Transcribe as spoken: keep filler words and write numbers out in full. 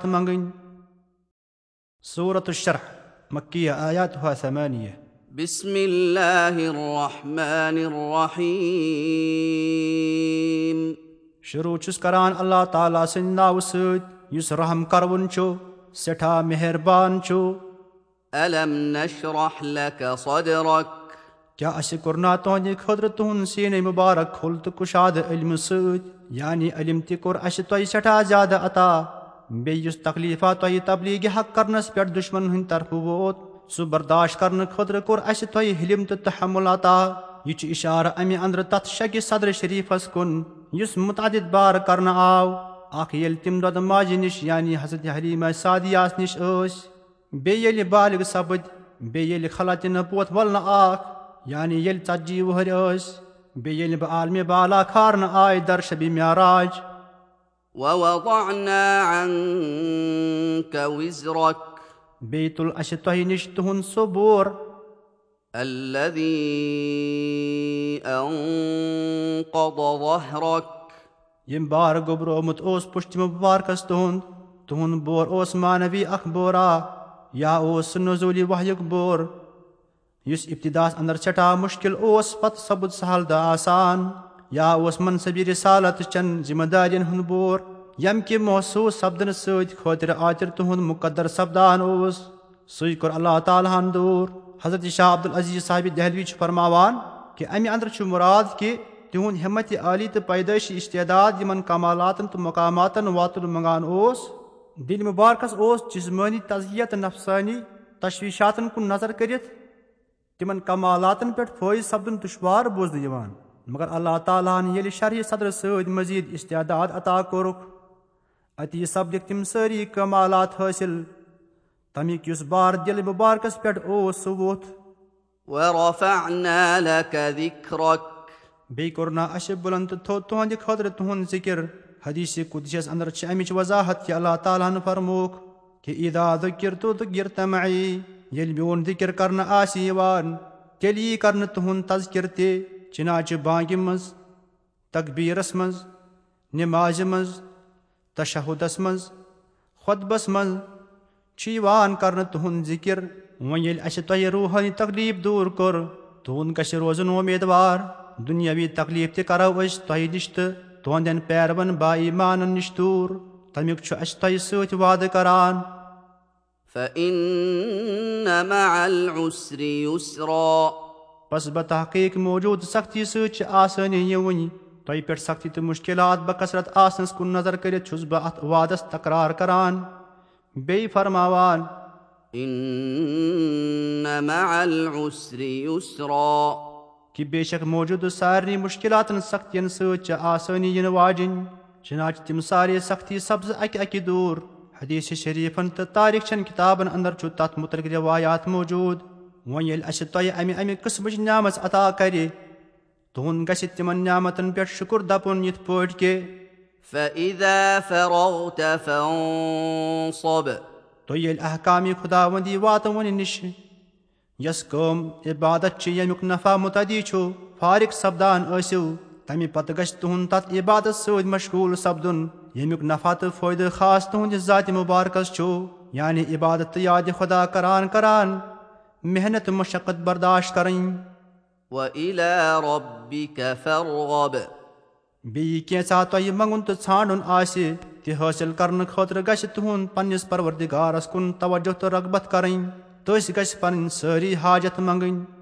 منگٕنۍ۔ سورة الشرح، مکیہ، آیاتها ثمانیہ۔ بسم اللہ الرحمن الرحیم۔ شروع چھُس کران اللہ تعالیٰ سٕنٛدِ ناوٕ سۭتۍ، یُس رحم کرون چھُ، سٮ۪ٹھاہ مہربان چھُ۔ الم نشرح لک صدرک۔ کیا اسہِ کوٚر نا تُہنٛدِ خٲطرٕ تُہُنٛد سیٖنے مُبارک کھُل تہٕ کُشادٕ علمہٕ سۭتۍ؟ یعنی علم تہِ کوٚر اسہِ تۄہہِ سٮ۪ٹھاہ زیادٕ عطا۔ بیٚیہِ یُس تکلیفہ تۄہہِ تبلیغ حق کرنس پٮ۪ٹھ دشمنن ہٕنٛدِ طرفہٕ ووت، سُہ برداشت کرنہٕ خٲطرٕ کوٚر اسہِ تۄہہِ حلم تہٕ تحمل عطا۔ یہِ چھُ اشارٕ امہِ اندرٕ تتھ شکہِ صدر شریفس کُن، یُس متعدد بار کرنہٕ آو۔ اکھ ییٚلہِ تِم دۄدٕ ماجہِ نِش، یعنی حضرت حلیمہ سعدیہ نِش ٲسۍ، بیٚیہِ ییٚلہِ بالغ سپٕدۍ، بیٚیہِ ییٚلہِ خلعتِ نبوت ولنہٕ آکھ، یعنی ییٚلہِ ژتجی وُہٕرۍ ٲسۍ، بیٚیہِ ییٚلہِ بہٕ عالمِ بالا کھارنہٕ آے در شبِ معراج۔ ووضعنا عنك وزرك۔ بیٚیہِ تُل اسہِ تۄہہِ نِش تُہُنٛد سُہ بور۔ الذي أنقض ظهرك۔ ییٚمۍ بار گوٚبرومُت اوس پُشتِ مُبارکس تُہُنٛد۔ تُہُنٛد بور اوس معنوی اکھ بورا، یا اوس سُہ نزولی وحیُک بور، یُس ابتداہس اندر سٮ۪ٹھاہ مشکل اوس، پتہٕ سپُد سہل تہٕ آسان، یا اوس منصبِ رسالت چٮ۪ن ذمہ دارین ہُنٛد بور، ییٚمہِ کہِ محسوس سپدنہٕ سۭتۍ خٲطرِ آتر تُہُنٛد مقدر سپدان اوس۔ سُے کوٚر اللہ تعالیٰ ہن دوٗر۔ حضرت شاہ عبدالعزیز صاحب دہلوی چھُ فرماوان کہِ امہِ اندرٕ چھُ مراد کہِ تِہُنٛد ہمت عالی تہٕ پیدٲیشی استعداد یِمن کمالاتن تہٕ مقاماتن واتُن منگان اوس۔ دِلہِ مُبارکس اوس جسمٲنی تزکیہ تہٕ نفسٲنی تشویشاتن کُن نظر کٔرِتھ تِمن کمالاتن پٮ۪ٹھ فٲیض سپدُن دُشوار بوزنہٕ یِوان، مگر اللہ تعالیٰ ہن ییٚلہِ شرح صدرٕ سۭتۍ مزید استعداد عطا کوٚرُکھ، اتی سپدِکھ تِم سٲری کمالات حٲصِل۔ تمیُک یُس بار دِلہِ مُبارکس پٮ۪ٹھ اوس، سُہ ووٚتھ۔ ورفعنا لك ذكرك۔ بیٚیہِ کوٚر نا اَسہِ بُلند تہٕ تھوٚد تُہنٛدِ خٲطرٕ تُہنٛد ذِکر۔ حدیث قدسیس اندر چھِ اَمِچ وضاحت کہِ اللہ تعالیٰ ہن فرمووُکھ کہِ اذا ذکرت ذکرت معی، ییٚلہِ میون ذِکر کرنہٕ آسہِ یِوان، تیٚلہِ یی کرنہٕ تُہنٛد تذکر تہِ۔ چنانچہ بانگہِ منٛز، تکبیرس منٛز، نمازِ منٛز، تشہدس منٛز، خطبس منٛز چھُ یِوان کرنہٕ تُہُنٛد ذِکر۔ وۄنۍ ییٚلہِ اَسہِ تۄہہِ روحٲنی تکلیف دوٗر کوٚر، تُہُنٛد گژھِ روزُن امیدوار۔ دُنیاوی تکلیف تہِ کرو أسۍ تۄہہِ نِش تہٕ تُہنٛدٮ۪ن پیروَن با ایمانن نِش دوٗر۔ تَمیُک چھُ اَسہِ تۄہہِ سۭتۍ وعدٕ کران۔ فإن مع العسر يسرا۔ پس بتحقیق موجود سختی سۭتۍ چھِ آسٲنی یِوٕنۍ۔ تۄہہِ پٮ۪ٹھ سختی تہٕ مشکلات بکثرت آسنس کُن نظر کٔرِتھ چھُس بہٕ اتھ وعدس تکرار کران۔ بیٚیہِ فرماوان، إن مع العسر يسرا۔ کہِ بے شک موجودٕ سارنٕے مشکلاتن سختین سۭتۍ چھِ آسٲنی یِنہٕ واجِنۍ۔ چنانچہ تِم سارے سختی سپزٕ اکہِ اکہِ دوٗر۔ حدیث شریفن تہٕ تاریخ چٮ۪ن کتابن اندر چھُ تتھ متعلق روایات موجود۔ وۄنۍ ییٚلہِ اسہِ تۄہہِ امہِ امہِ قسمٕچ نعمژ عطا کرِ، تُہُنٛد گژھِ تِمن نعمتن پٮ۪ٹھ شُکر دپُن، یِتھ پٲٹھۍ کہِ فإذا فرغت فانصب۔ تُہۍ ییٚلہِ احکامِ خداوندی واتوٕنہِ نِش، یۄس کٲم عبادت چھِ، ییٚمیُک نفع متعدی چھُ، فارغ سپدان ٲسِو، تمہِ پتہٕ گژھِ تُہُنٛد تتھ عبادت سۭتۍ مشغول سپدُن، ییٚمیُک نفع تہٕ فٲیدٕ خاص تُہنٛدِ ذاتِ مبارکس چھُ، یعنی عبادت تہٕ یادِ خدا کران کران محنت مشقت برداشت کرٕنۍ۔ وإلى ربك فارغب۔ بیٚیہِ کینٛژھا تۄہہِ منٛگُن تہٕ ژھانٛڈُن آسہِ، تہِ حٲصِل کرنہٕ خٲطرٕ گژھِ تُہُنٛد پننِس پروردگارس کُن توجہ تہٕ رغبت کرٕنۍ۔ تٔسۍ گژھِ پنٕنۍ سٲری حاجت منٛگٕنۍ۔